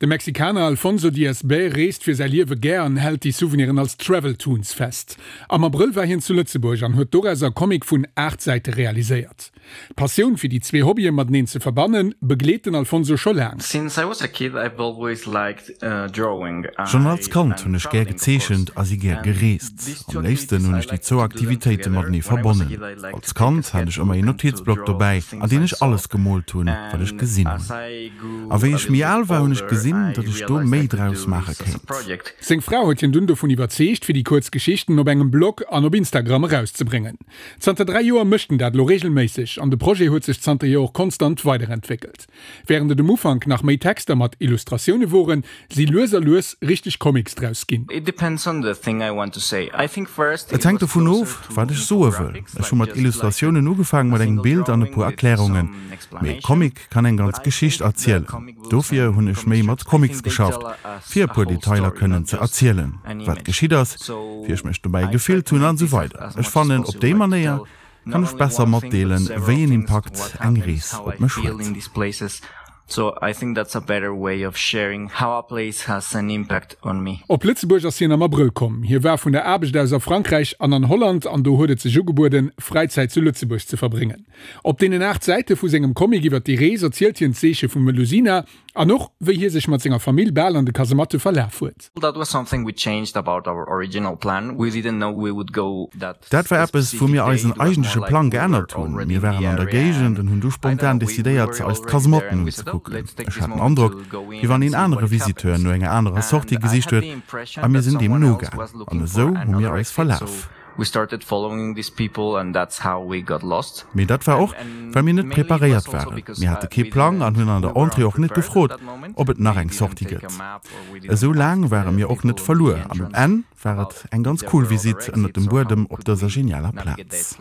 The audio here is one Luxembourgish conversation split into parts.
De Mexikaner Alfonso Diaz Bey reest fir säi Liewe gär an hält déi Souveniren als Travel Toons fest. Am Abrëll war hien zu Lëtzebuerg an huet dorauser e Comic vun 8 Säite realiséiert. D'Passioun fir déi zwee Hobbye mateneen ze verbannen, begleet den Alfonso scho laang. Since I was a kid I've always liked drawing. Schonn als Kand hunn ech gär gezeechent a si gär gereest. Am léifsten hunn ech déi zwou Aktivitéite matenee verbonnen. Als Kand hat ech ëmmer een Notizblock dobäi, an deen ech alles gemoolt hunn, wat ech gesinn hunn. A wéi ech méi al war, hunn ech gesinn, datt ech do méi draus maache kéint. Seng Fra huet hien dunn dovun iwwerzeegt, fir déi kuerz Geschichten op engem Blog an op Instagram erauszebréngen. Zanter 3 Joer mécht en dat elo reegelméisseg an de Projet huet sech zanterhier och konstant weiderentwéckelt. Wärend et um Ufank nach méi Texter mat Illustratioune woren, si lues a lues richteg Comics draus ginn. Et hänkt dovun of, wat ech soe wëll. Ech hu mat Illustratiounen ugefaang, mat engem Bild an e puer Erklärungen. Mee e Comic kann eng ganz Geschicht erzielen. Dofir hunn ech méi mat Comics geschafft, fir e puer Detailer kënnen ze erzielen, wat geschitt ass, wéi ech mech dobäi gefillt hunn an esou weider. Ech fannen, op déi Manéier kann ech besser matdeelen, wéi een Impakt eng Rees op mech huet. Op Lëtzebuerg ass hien am Abrëll komm. Hie war vun der Aarbecht aus a Frankräich an an Holland an do huet et sech ugebueden, Fräizäit zu Lëtzebuerg ze verbréngen. Op deenen 8 Säite vu sengem Comic iwwer déi Rees erzielt hien d'Seeche vum Melusina an och, wéi hie sech mat senger Famill bal an de Kasematte verlaf huet. Dat war eppes, wou mir eisen eigentleche Plang geännert hunn. Mir waren an der Géigend an hunn du spontan decidéiert, eis d'Kasematten unzekucken. Ech hat den Androck, wéi wann een anere Visiteur no enger anerer Sortie gesicht huet a mir sinn deem nogaang. An esou hu mir eis verlaf. We started following these people and that's how we got lost. Mee dat war och, well mir net preparéiert waren. Mir hate kee Plang an hunn an der Entrée och net gefrot, ob et nach eng Sortie gëtt. Esou laang ware mir och net verluer an um Enn war et eng ganz cool Visitt ënnert dem Buedem op dëser genialer Plaz.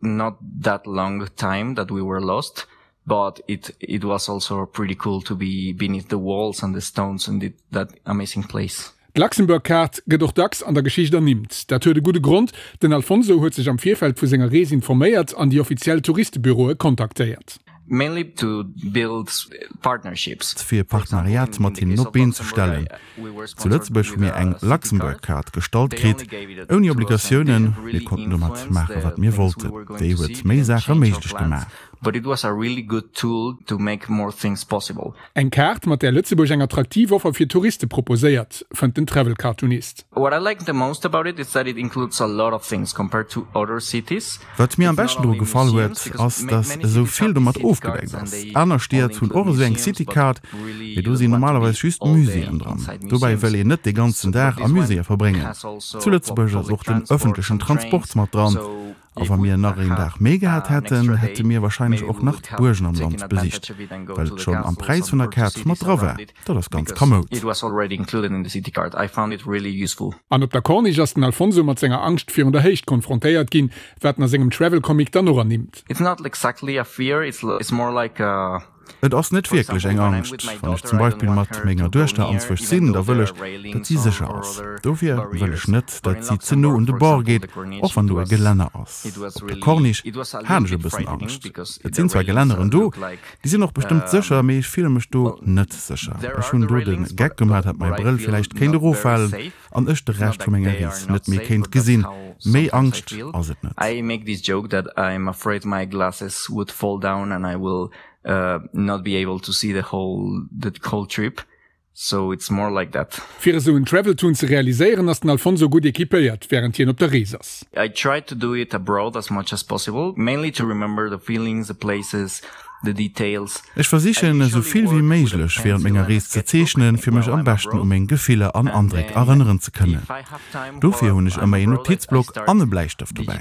Not that long time that we were lost, but it it was also pretty cool to be beneath the walls and the stones and the, that amazing place. D'Luxembourg Card gëtt och dacks an der Geschicht ernimmt. Dat huet e gudde Grond, Den Alfonso huet sech am Virfeld vu senger Rees informéiert an déi offiziell Touristebüroe kontaktéiert. Mainly to build partnerships. Fir e Partenariat mat hinnen op d'Been ze stellen. Zu Lëtzebuerg hu mir eng Luxembourg Card gestallt kritt, ouni Obligatiounen. Mir konnten domat maache wat mir wollten. Déi huet méi Saache méiglech gemaach. Eng Kaart, mat där Lëtzebuerg eng attraktiv Offer fir Touriste proposéiert, fënnt den Travel-Cartoonist. What I like the most about it is that it includes a lot of things compared to other cities. Wat mir am beschten dru gefall huet, ass dass esou vill domat ofgedeckt ass. Aner Stied hunn och esou eng City Card, mee do sinn normalerweis just Muséeën dran. Dobäi wëll een net de ganzen Dag a Muséeë verbréngen. Zu Lëtzebuerg ass och den ëffentlechen Transport mat dran. A wa mir nach een Dag méi gehat hätten, hätte mir wahrscheinlech och nach d'Buergen am Land besicht, well et schonn am Präis vun der Kaart mat dra war. Dat ass ganz kamoud. An op der Corniche ass den Alfonso mat senger Angscht virun der Héicht konfrontéiert ginn, wat en a sengem Travel Comic dann och ernimmt. Et ass net wierklech eng Angscht. Wann ech zum Beispill mat menger Duechter anzwousch sinn, da wëll ech, datt si sécher ass. Dofir wëll ech net, datt si ze no un de Bord geet, och wann do e Gelänner ass. Op der Corniche hat ech e bëssen Angscht. Et sinn zwar Gelänneren do, déi sinn och bestëmmt sécher, mee ech fille mech do net sécher. Ech hunn do de Geck gemaach, datt mäi Brëll villäicht kéint eroffalen an ech de Rescht vu menger Rees net méi kéint gesinn. Méi Angscht ass et net. Not be able to see the whole the whole trip so it's more like that. Fir esou en Traveltoon ze realiséieren ass den Alfonso gutt equipéiert wärend hien op der Rees ass. I try to do it abroad as much as possible, mainly to remember the feelings, the places, the details. Ech versichen esou vill wéi méiglech wärend menger Rees ze zeechnen, fir mech am beschten u meng Gefiller an Andréck erënneren ze kënnen. Dofir hunn ech ëmmer een Notizblock an e Bläistëft dobäi.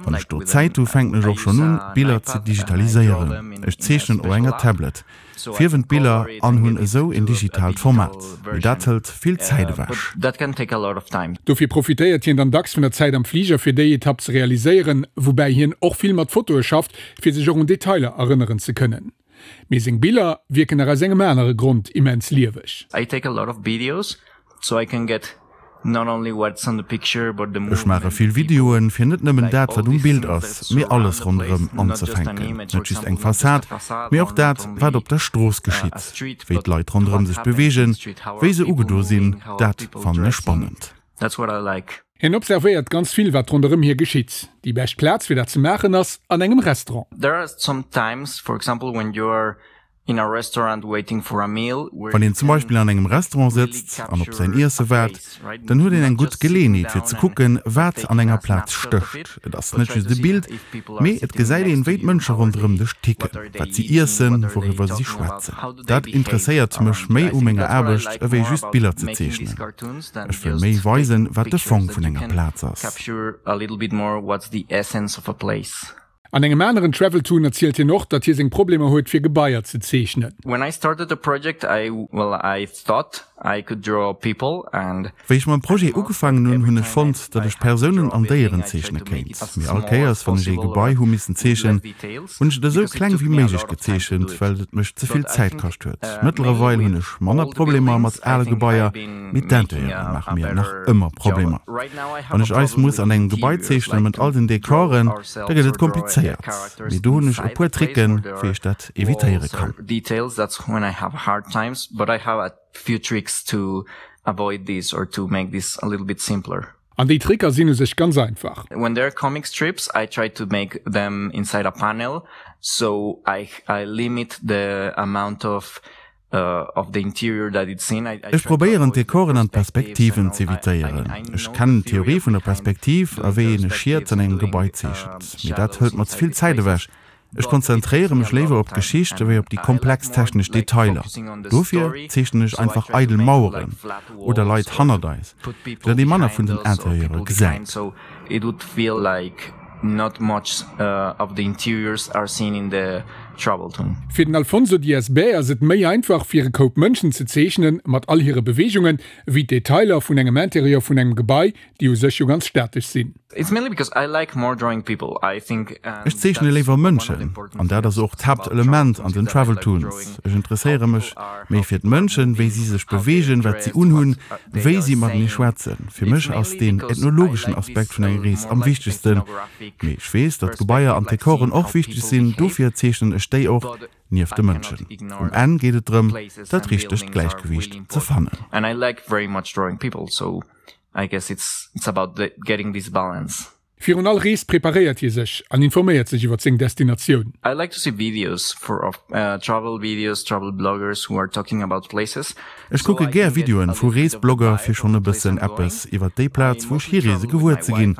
Wann ech do Zäit hu fänken ech och schonn un, Biller ze digitaliséieren. Ech zeechnen op enger Tablet, fierwen d'Biller an hunn esou een digitaalt Format. Mee dat hëlt vill Zäit ewech. Dofir profitéiert hien dann dacks vun der Zäit am Fliger fir déi Etapp ze realiséieren, woubäi hien och vill mat Fotoe schafft, fir sech och un Detailer erënneren ze kënnen. Mee seng Biller wierken nach aus engem anere Grond immens lieweg. I take a lot of videos so I can get. Ech maache vill Videoen, fir net nëmmen dat, wat um Bild ass, mee alles ronderëm anzefänken. Net just eng Fassad, mee och dat, wat op der Strooss geschitt, wéi d'Leit ronderëm sech beweegen, wéi se ugedo sinn, dat fannen ech spannend. Hien observéiert ganz vill, wat ronderëm hie geschitt. Déi bescht Plaz, fir dat ze maachen, ass an engem Restaurant. Wann een zum Beispill an engem Restaurant sëtzt an op säin Iesse waart, dann huet een eng gutt Geleeënheet fir ze kucken, wat an enger Plaz stécht. Et ass net just e Bild, mee et gesäit een, wéi d'Mënsche ronderëm dech ticken, wat si iessen, wouriwwer si schwätzen. Dat interesséiert mech méi u menger Aarbecht, ewéi just Biller ze zeechnen. Ech wëll méi weisen, wat de Fong vun enger Plaz ass. An engem aneren Traveltoon erzielt hien och, datt hie seng Problemer huet fir Gebaier ze zeechnen. When I started the project I, well I thought I could draw people and. Wéi ech mam Projet ugefaangen hunn, hunn ech fonnt, datt ech Persounen an Déieren zeechne kéint. Mee all Kéiers wann ech ee Gebai hu missen zeechen, hunn ech et esou kleng wéi méiglech gezeechent, well et mech ze vill Zäit kascht huet. Mëttlerweil hunn ech manner Problemer mat ale Gebaier, Mee d'Interieure maache mir nach ëmmer Problemer. Wann ech eis muss an engem Gebai zeechnen, mat all den Dekoren, da gëtt et komplizéiert. Mee do hunn ech e puer Tricken, wéi ech dat evitéiere kann. An déi Tricker sinn u sech ganz einfach. When there are comic strips, I try to make them inside a panel, so I limit the amount of Ech probéieren d'Dekoren an d'Perspektiven z'evitéieren. Ech kennen d'Theorie vun der Perspektiv a wéi een e Schiet an engem Gebai zeechent, mee dat hëlt mer ze vill Zäit ewech. Ech konzentréiere mech léiwer op d'Geschicht ewéi op déi komplex technesch Detailer. Dofir zeechnen ech einfach eidel Maueren oder Leit hannert eis, fir datt ee manner vun den Interieure gesäit. It would feel like not much of the interiors are seen in the Traveltoon. Fir den Alfonso Diaz Bay ass et méi einfach fir e Koup Mënschen ze zeechnen, mat all hire Beweegungen, ewéi d'Detailer vun engem Interieur vun engem Gebai, déi u sech jo ganz statesch sinn. It's mainly because I like more drawing people, I think Ech zeechne léiwer Mënschen, an dat ass och d'Haaptelement an den Traveltoons. Ech interesséiere mech méi fir d'Mënschen, wéi si sech beweegen, wat si unhunn, wéi si matenee schwätzen. Fir mech ass deen ethnologeschen Aspekt vun enger Rees am wichtegsten. Mee ech weess, datt d'Gebaier an d'Dekoren och wichteg sinn, dofir zeechnen ech déi och nieft de Mënschen. Um Enn geet et drëm, dat richtegt Gläichgewiicht ze fannen. Virun all Rees preparéiert hie sech an informéiert sech iwwer seng Destinatioun. I like to see videos for of travel videos, travel bloggers who are talking about places. Ech kucke gär Videoen vu Reesblogger fir schonn e bëssen eppes iwwer déi Plaz wou ech hireese gewuer ze ginn.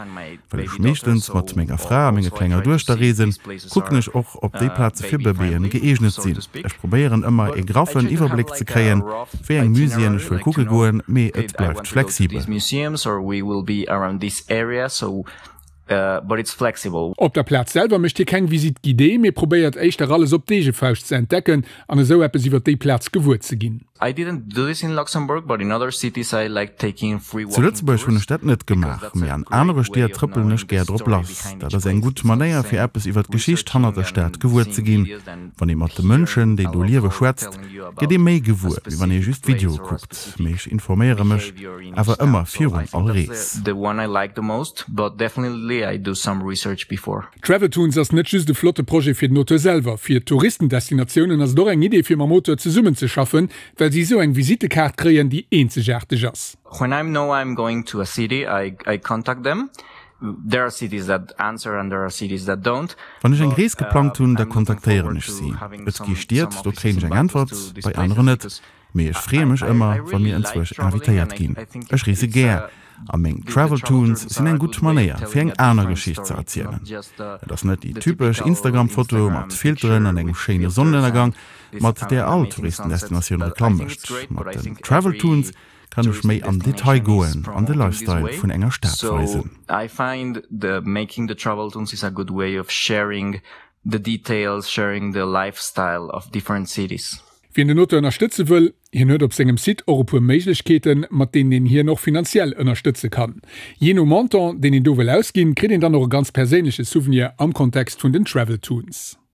Well ech meeschtens mat menger Fra a menger klenger Duechter reesen, kucken ech och ob déi Plaze fir Bëbeeën gëeegnet sinn. Ech probéieren ëmmer ee graffen Iwwerbléck ze kréien wéi eng Muséeën ech wëll kucke goen, mee et bleift flexibel. Op der Plaz selwer mécht hie keng Visite guidée, mee probéiert éischter alles op d'eege Fauscht ze entdecken an esou eppes iwwer déi Plaz gewuer ze ginn. Zu Lëtzebuerg hunn ech dat net gemaach, mee an anere Stied trëppelen ech gär drop lass. Dat ass eng gutt Manéier fir eppes iwwer d'Geschicht hannert der Stad gewuer ze ginn. Wann ee mat de Mënschen, déi do liewe schwätzt, gëtt ee méi gewuer, wéi wann ee just Videoe kuckt. Mee ech informéiere mech awer ëmmer virun all Rees. Traveltoons ass net just e flotte Projet fir den Auteur selwer. Fir d'Touristendestinatiounen ass et och eng Idee fir mam Auteur zesummenzeschaffen, well si esou eng Visittekaart kréien, déi eenzegaarteg ass. When I know I'm going to a city, I I contact them. There are cities that answer and there are cities that don't. Wann ech eng Rees geplangt hunn, da kontaktéieren ech si. Et gi Stied, do kréien ech eng Äntwert, bei aneren net. Mee ech freeë mech ëmmer, wa mir enzwousch invitéiert ginn. Ech reese gär, a meng Traveltoons sinn eng gutt Manéier, fir eng aner Geschicht ze erzielen. Et ass net déi typesch Instagram-Foto mat Filteren an engem schéine Sonnenënnergang, mat där all Touristendestinatioun Reklamm mécht. Mat den Traveltoons kann ech méi am Detail goen an de Lifestyle vun enger Stad weisen. Wien den Auteur ënnerstëtze wëll, hien huet op sengem Site och e puer Méiglechkeeten, mat deenen een hien och finanziell ënnerstëtze kann. Jee no Montant, deen een do wëll ausginn, kritt een dann och e ganz perséinleche Souvenir am Kontext vun den Traveltoons.